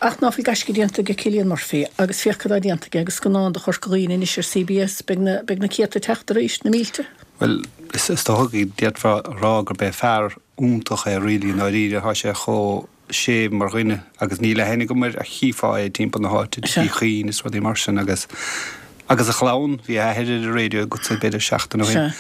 Ach ná fuil gaisce déanta ag Cillian Murphy agus féach cad tá déanta aige agus scannán do Chorca Dhuibhne anois ar CBS, beidh na, beidh na céadta ag teacht arís, na mílte. Bhuel, is dócha go d'fhéadfá a rá gurb é fear iontach é really i ndáiríre, tá sé chomh séimh mar dhuine agus níl aithne agam air ach chífeá é timpeall na háite, Tigh Uí Chuinn is rudaí mar sin agus agus a chlann, bhí a athair ar an raidió agatsa b'fhéidir seachtain ó shin,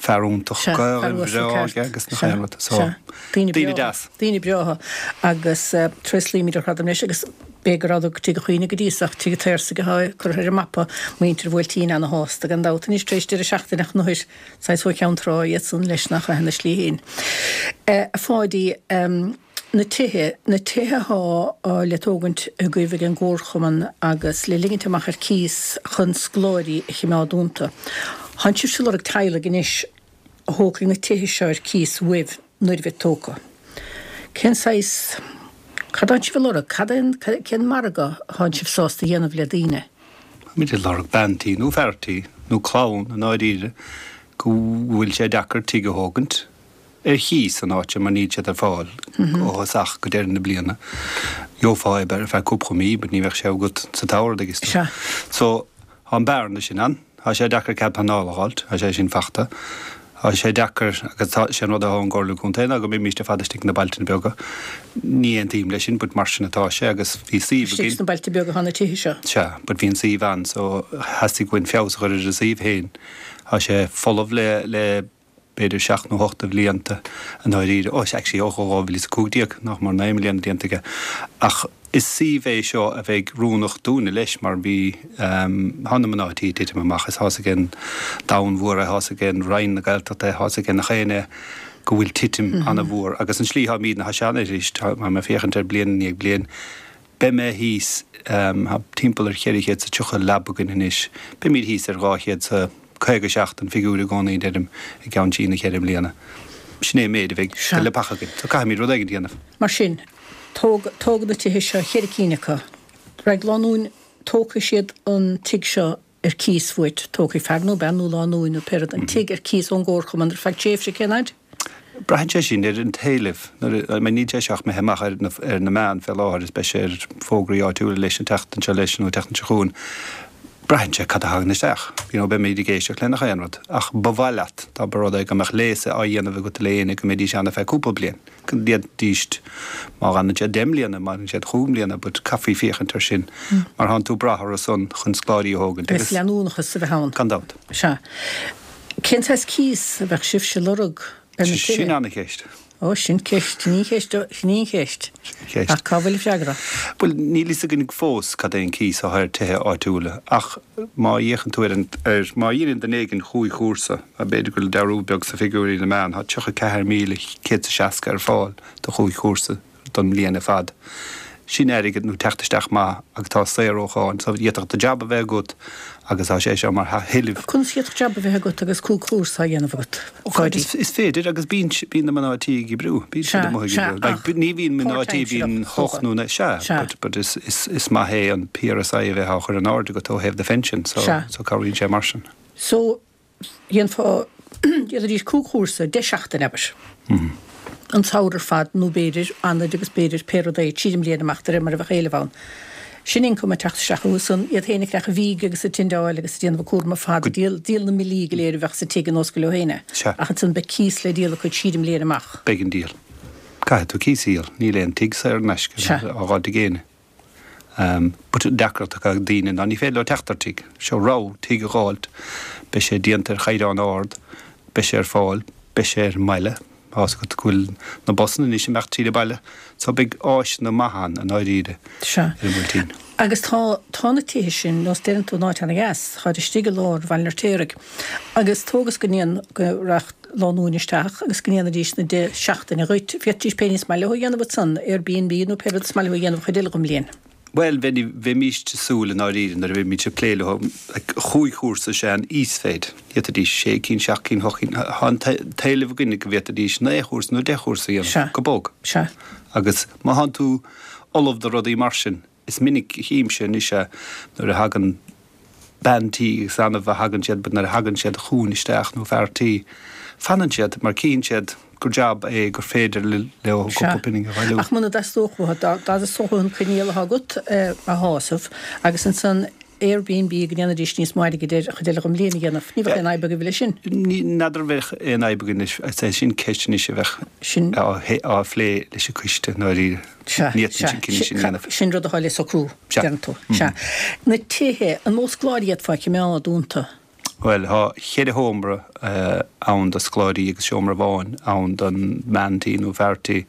fear iontach, Gaelainn bhreá aige agus nach aon rud, so daoine deas. Daoine breátha agus tréaslaímid ar fad leis agus b'fhéidir go rabhadar go Tigh Uí Chuinn go dtí so ach Tigh an tSaorsaigh atá curtha ar an mapa, muintir an Bhuailtín ana-shásta gan dabht anois tar éis deireadh seachtaine ach an Saghas ó Cheann Trá iadsan leis nach ea ina slí féin. A Pháidí, na tithe, na tithe athá le tógaint agaibh ag an gComharchumann agus le ligint amach ar cíos chun scoláirí a chimeád iontu. Thánn sibhse ag lorg teaghlaigh anois a thógfaidh na tithe seo ar cíos uaibh nuair a bheid tógtha. Cén saghas, cad thánn sibh ag lorg? Cad é an, cén margadh athánn sibh sásta a dhéanamh le daoine? Táimid ag lorg bean tí nó fear tí, nó clann i ndáiríre, go bhfuil sé deacair tigh a thógaint ar chíos san áit seo mar níl siad ar fáil ó thosach go deireadh na bliana. Gheofá é ar feadh cúpla mí but ní bheadh sé agat sa tsamhradh agus tú. So, tá an bearna sin ann. Tá sé deacair cead pleanála a dh'fháilt, tá sé sin fachta. Tá sé deacair, agus tá, sé an rud atá ón gComhairle Contae ná go mbeimíst ar fad istigh sna bailte beaga. Ní aontaím leis sin but mar sin atá sé agus bhí suíomh againn. Istigh sna bailte beaga atá na tithe seo. Sea, but bhí an suíomh ann so theastaigh uainn feabhas a chur ar an suíomh féin. Tá sé folamh le, le b'fhéidir seacht nó hocht de bhlianta i ndáiríre, ó actually ó 2015, nach mór 9 mbliana déanta aige. Ach is suíomh é seo a bheidh oiriúnach dúinne leis mar bhí, tá na mná tí ag titim amach is tá's ag an domhan mhór é, tá's ag an Roinn na Gaeltachta é, tá's ag nach éinne go bhfuil titim an-mhór agus an slí tháimídne, tá sé an-arís, tá mé ag féachaint ar bliain i ndiaidh bliain, Beidh mé thíos, tá timpeall ar 430 leaba againn anois, beimid thíos ar 257 an figiúr i gcónaí, deirim, i gceann trí nó cheithre mbliana. Sin é an méid a bheidh de leapacha againn. So caithfimid rud éigin a dhéanamh. Mar sin, tóg, tógadh na tithe seo, cheithre cinn acu. Raghaidh lánúin, tógfaidh siad an tigh seo ar cíos uait, tógfaidh fear nó bean nó lánúin nó pé rud an tigh ar cíos ón gcomharchumann ar feadh tréimhse, cén fhaid? Braitheann sé sin ar an t-éileamh. Nuair a, I mean níl sé seo ach imithe amach ar na, ar na meáin fé láthair is beidh sé ar fógraí áitiúla leis an tseachtain seo leis nó an tseachtain seo chugainn. Braitheann sé cad a thagann isteach. You know, beimid ag éisteacht le nach aon rud. Ach ba mhaith leat dá mba rud é go mbeadh léas á dhéanamh agat le éinne go mbeidís ann ar feadh cúpla bliain. Go ndéanfaidís, má fhanann siad 10 mbliana, má fhanann siad chúig mbliana, but caithfí féachaint air sin mar thánn tú ag brath orthu san chun scoláirí a thógaint agus. Agus leanúnachas a bheith ann. Gan dabht. Sea. Cén saghas cíos a bheadh sibhse ag lorg ar na tithe? Sin ana-cheist. Ó, sin ceist, sin í an cheist, sin í an cheist. Sin an cheist. Ach cá bhfuil an freagra? Bhuel, níl fhios againn fós cad é an cíos atá ar tithe áitiúla ach má fhéachann tú ar an, ar, má dheineann duine éigin chúig chúrsa, B'fhéidir go bhfuil dearúd beag sna figiúirí na meán, tá 34,160 ar fáil do chúig chúrsa don mbliain ar fad. Sin airgead nó teacht isteach maith agus tá saor ó cháin so d'fhéadfadh do jab a bheith agat agus tá sé seo mar thuilleamh. Conas a d'fhéadfadh jab a bheith agat agus cúig chúrsa á dhéanamh agat, a Pháidí? Is féidir agus bíonn bíonn na mná tí ag oibriú, bíonn siad amuigh ag oibriú. Like ní bhíonn mná tí, bíonn hocht nó naoi, sea, but but is is is maith é an PRSI a bheith á chur in airde agat ó thaobh do phension so so cabhraíonn sé mar sin. So dhéanfá, dhéanfaidís cúig chúrsa, 10 seachtain, abair, an samhradh ar fad nó b'fhéidir Eanáir agus b'fhéidir pé rud é, tríd an mbliain amach de réir mar a bheadh éileamh ann. Sin ioncam ag teacht isteach chucu san, iad féin ag creachadh fíge agus ag tindeáil agus ag déanamh a cúram ar fad, ag díol, díol na mbillí go léir a bheadh sa tigh ar nós gur leo féin é. Sea. Ach ansan beidh cíos le díol acu tríd an mbliain amach. Beidh an díol. Caithfidh tú cíos a dhíol. Níl aon tigh saor in aisce Sea. á dh'fháilt ag éinne. But an deacracht atá ag daoine ná ní féidir leo teacht ar tigh. Seo rogha, tigh a dh'fháilt, beidh sé déanta ar chaighdeán ard, beidh sé ar fáil, beidh sé ar an mbaile, tá's agat go bhfuil na busanna anois ag imeacht tríd an baile, so beidh áiseanna maithe ann i ndáiríre Sea. ar an mBuailtín. Agus tá, tá na tithe sin, nós deireann tú, in áit ana-dheas, táid istigh i lár Bhaile an Fheirtéaraigh. Agus tóg is go ndéan, go rachadh lánúin isteach agus go ndéanfaidís na 10 seachtaine dhuit, féadfaidís pé ní is maith leo a dhéanamh ansan, Airbnb nó pé rud is maith leo a dhéanamh an chuid eile den mbliain. Bhuel, bheimíst ag súil i ndáiríre nuair a bheimid ag plé leo, like, chúig chúrsa is ea an íosmhéid. D'fhéadfaidís sé cinn, seacht cinn, hocht cinn, tá an t-éileamh againne go bhféadfaidís naoi chúrsa nó deich chúrsa a dhéanamh, Sea. go bog. Sea. Agus má thánn tú ullamh do rudaí mar sin, Is minic a chímse anois é nuair a thagann bean tí, is annamh a thagann siad, but nuair a thagann siad chugainn isteach, nó fear tí, Fanann siad mar cíonn siad gur jab é gur féidir leo cúpla pingin a bhailiú. Ach muna dteastódh uathu, dá dteastódh uathu an coinníoll atá agat a shásamh agus ansan Airbnb go ndéanfaidís níos mó airgid air an chuid eile den bhliain a dhéanamh, ní bheadh aon fhadhb agaibh leis sin. N'fheadar an bheadh aon fhadhb againn leis, is é sin ceist anois a bheadh á phlé leis an coiste i ndáiríre. Sea, Ní fhéadfainn an cinneadh sin a dhéanamh. Sin rud atá le socrú, deireann tú. Sea. Na tithe, an mó scoláirí a d'fhéadfá a choimeád iontu? Bhuel, tá cheithre sheomra ann do scoláirí agus seomra amháin ann don mbean tí nó fear tí.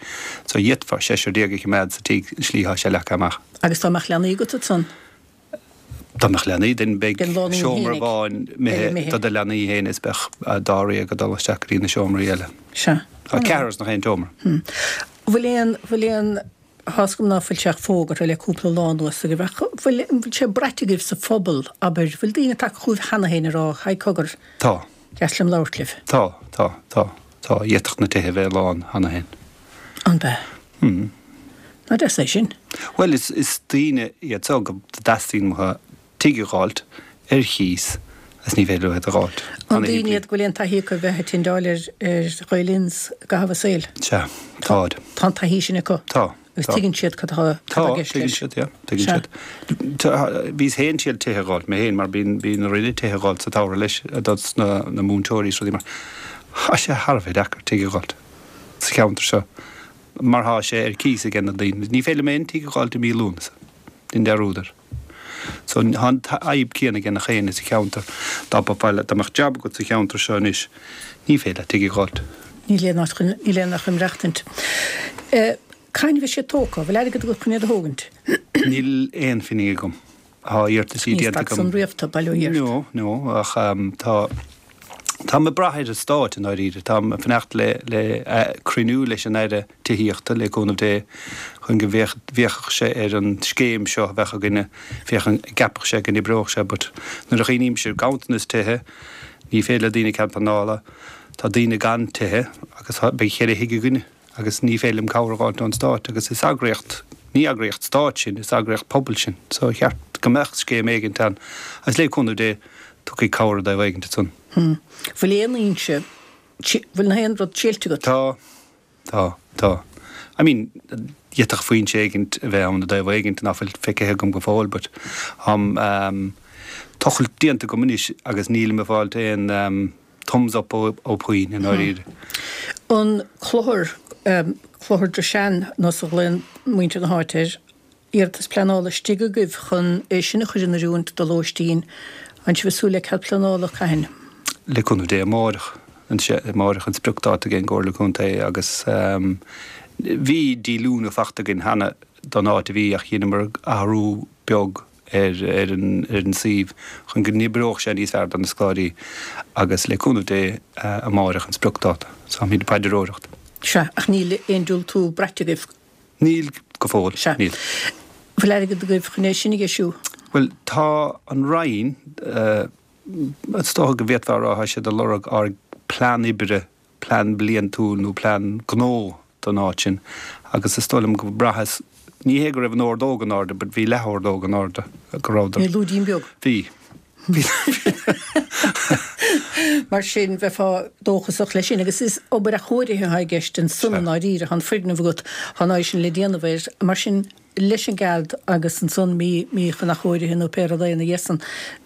So d'fhéadfá seisear déag a choimeád sa tigh, an slí atá sé leagtha amach. Agus dá mbeadh leanaí agat ansan? Dá mbeadh leanaí, then beidh seomra amháin imithe do do leanaí féin is beadh dáréag ag dul isteach go dtí na seomraí eile. Sea. Tá ceathrar ins nach aon tseomra. Bhfuil aon, bhfuil aon. Tá's agam ná fuil sé ach fógartha le cúpla lá anuas agaibh, ach bhfuil, an bhfuil sé braite agaibh sa phobal, abair, bhfuil daoine tagtha chugaibh cheana féin ag rá, Haigh cogar, Tá. deas liom labhairt libh. Tá, tá, tá, tá, d'fhéadfadh na tithe a bheith lán cheana féin. An bea? Hmm. Nach deas é sin? Bhuel, is, is daoine iad so go dteastaíonn uathu tigh a dh'fháilt ar chíos agus ní féidir leo iad a dh'fháilt. An daoine iad go bhfuil aon taithí acu a bheith ag tindeáil ar Ghael-Inns i gcaitheamh a saoil? Sea, táid. Tá an taithí sin acu? Tá. Agus tuigeann siad cad atá i gceist leis? Tá, tuigeann siad, yeah, tuigeann siad. Bhíos féin ag triail tithe a dh'fháilt, mé féin, mar bíonn, bíonn orainne tithe a dh'fháilt sa tsamhradh leis, dos na, na múinteoirí is rudaí mar. Tá sé thar a bheith deacair tigh a dh'fháilt sa cheantar seo mar tá sé ar cíos ag na daoine. Ní féidir liom aon tigh a dh'fháilt i mí Lúnasa, déan dearúd air. So tá an fhadhb céanna ag nach éinne sa cheantar. Dá mbeifeá le, dá mbeadh jab agat sa cheantar seo anois, ní féidir leat tigh a dh'fháilt. Níl aon áit chun, níl aon áit chun maireachtaint. Cathain a bheidh siad tógtha? Bhfuil airgead agat chun iad a thógaint? Níl aon phingin agam. Tá iarrataisí Ní déanta stad san agam. riamh tú, bail ó Dhia ort. No, no, ach tá, táim ag brath ar an Stát i ndáiríre. Táim ag fanacht le, le cruinniú leis an Aire. Tithíochta, le cúnamh Dé, chun go bhféachfadh sé ar an scéim seo a bheadh againne, féachaint an gceapfadh sé go n-oibreodh sé but nuair a chuimhnímse ar ganntanas tithe, ní féidir le daoine cead pleanála, tá daoine gan tithe agus beidh cheithre thigh againne agus ní féidir liom cabhair a dh'fháilt ón Stát agus is eagraíocht, ní eagraíocht Stáit sinn, is eagraíocht pobail sinn so cheart go mbeadh scéim éigint ann agus le cúnamh Dé tiocfaidh cabhair i dtaobh éigint ansan. Bhfuil aon fhoinse, bhfuil aon rud tuillte agat? Tá. Tá, tá. I mean, d'fhéadfadh foinse éigint a bheith ann i dtaobh éigint nach bhfuil feicthe agam go fóill but tá tochailt déanta agam anois agus nílim ag fáilt aon thumbs up ó puinn i ndáiríre. An clochar, Clochar Drishane nós a ghlaonn muintir na háite air, iarratas pleanála istigh agaibh chun é sin a chur in oiriúint do lóistín. An sibh ag súil le cead pleanála, cathain? Le cúnamh Dé amáireach. Amáireach an spriocdáta ag an gComhairle Contae agus bhí díolúine fachta againn cheana don áit a bhí ach dheineamar athrú beag ar ar an ar an suíomh chun go n-oibreodh sé níos fearr do na scoláirí agus le cúnamh Dé amáireach an spriocdáta. So táimid ag paidreoireacht. Sea, ach níl aon diúltú braite agaibh. Níl, go fóill. Sea. Níl. Bhfuil airgead agaibh chun é sin a dheisiú? Bhuel, tá an Roinn, is dócha go bhféadfá a rá, tá siad ag lorg ár bplean oibre, plean bliantúil nó plean gnó don áit sin agus is dóigh liom go mbraitheas, ní hé go raibh an ordóg in airde but bhí leath-ordóg in airde, go rabhadar. Bhí lúidín beag. Bhí. Mar sin, bheifeá dóchasach leis sin. Agus is obair athchóirithe atá i gceist ansan i ndáiríre. Tá an foirgneamh agat, tá an áit sin le déanamh air. Mar sin, leis an gcead agus ansan mí, mí chun athchóirithe nó pé rud é ina dhiaidh san,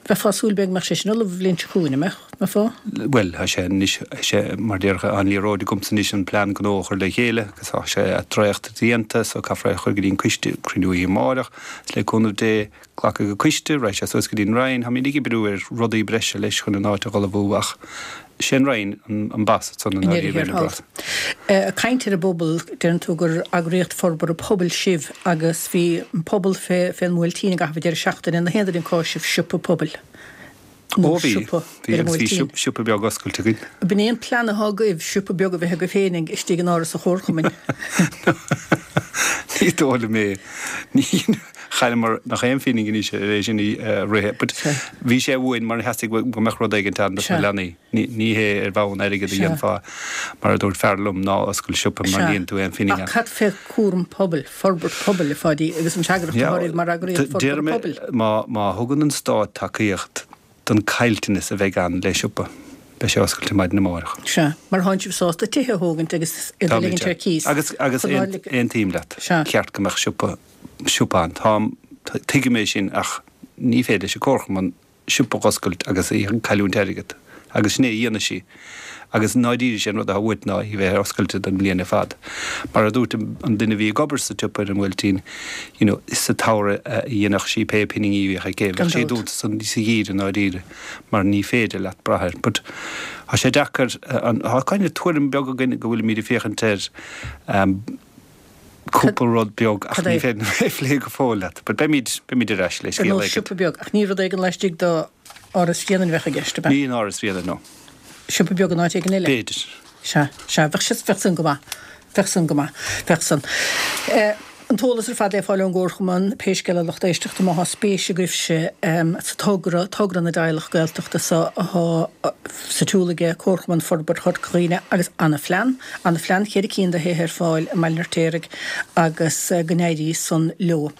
bheifeá ag súil b'fhéidir go mbeadh sé sin ullamh an bhliain seo chugainn, an mbeadh? Mbeifeá? Bhuel, tá sé anois, tá sé, mar déarfá, an liathróid agamsa anois an plean gnó a chur le chéile agus tá sé dréacht déanta so caithfear é a chur go dtí an coiste, cruinniú oíche amárach, is le cúnamh Dé, Glacfaidh an coiste, raghaidh sé suas go dtí an Roinn. Táimid ag oibriú ar rudaí breise leis chun an áit a dh'ullmhú ach sé an Roinn an boss ansan i ndeireadh thiar thall. Ag caint ar an bpobal, deireann tú gur eagraíocht forbartha pobail sibh agus bhí an pobal fén mBuailtín i gcaitheamh an deireadh seachtaine. An aon duine cá sibh siopa pobail? Ó bhí, bhí agus bhí siopa beag oscailte againn. B'in é an plean atá agaibh, siopa beag a bheith agaibh féin istigh in Áras an Chomharchumainn. Ní dóigh liom é. Ní, chailleamar nach aon phingin anois ar é sin a rith. But bhí sé uainn mar theastaigh go mbeadh rud éigint ann dos na leanaí. Ní hé ar bhonn airgid a dhéanfá, mar a dúirt fear liom, ná oscail siopa mar ní dhéanfaidh tú aon phingin ann. Ach cad fé chúram pobail, forbairt pobail, a Pháidí, agus an fhreagracht atá oraibh mar eagraíocht forbartha pobail? Má, má thugann an Stát tacaíocht don caillteanas a bheidh ann le siopa. Beidh sé oscailte maidin amárach. Sea. Mar thánn sibh sásta tithe a thógaint agus iad a ligint ar cíos. Agus, agus aontaím leat. Sea. Cheart go mbeadh siopa, siopa ann. Táim, tuigim é sin ach ní féidir leis an Comharchumann siopa a dh'oscailt agus í ag cailliúint airgead. Agus sin é a dhéanfaidh sí. Agus i ndáiríre sé an rud atá uait ná í bheith oscailte don bhliain ar fad. Mar a dúirt an duine a bhí ag obair sa tsiopa ar an mBuailtín, you know, sa tsamhradh a dhéanfadh sí pé pinginí a bhíodh aici. Bheadh sí dúnta sa gheimhreadh i ndáiríre mar ní féidir leat brath air. But tá sé deacair, tá kind of tuairim beag againn go bhfuilimid ag féachaint ar cúpla rud beag ach ní féidir liom é a phlé go fóill leat. But beimid, beimid ar ais le scéal éigin. Ar nós siopa beag, ach ní rud éigin laistigh d'Áras Bhréanainn a bheadh i gceist, ab ea? Ní in Áras Bhréanainn, no. Siopa beag in áit éigin eile? B'fhéidir. Sea, sea, bheadh sé, bheadh san go maith. Bheadh san go maith. Bheadh san. An t-eolas ar fad le fáil ón gComharchumann, pé scéal é lucht éisteachta, má thá spéis agaibhse sa togra, togra na dteaghlach Gaeltachta so athá sa tsiúl aige Comharchumann Forbartha Chorca Dhuibhne agus ana-phlean, ana-phlean, cheithre cinn de thithe ar fáil i mBaile an Fheirtéaraigh agus go n-éirí san leo.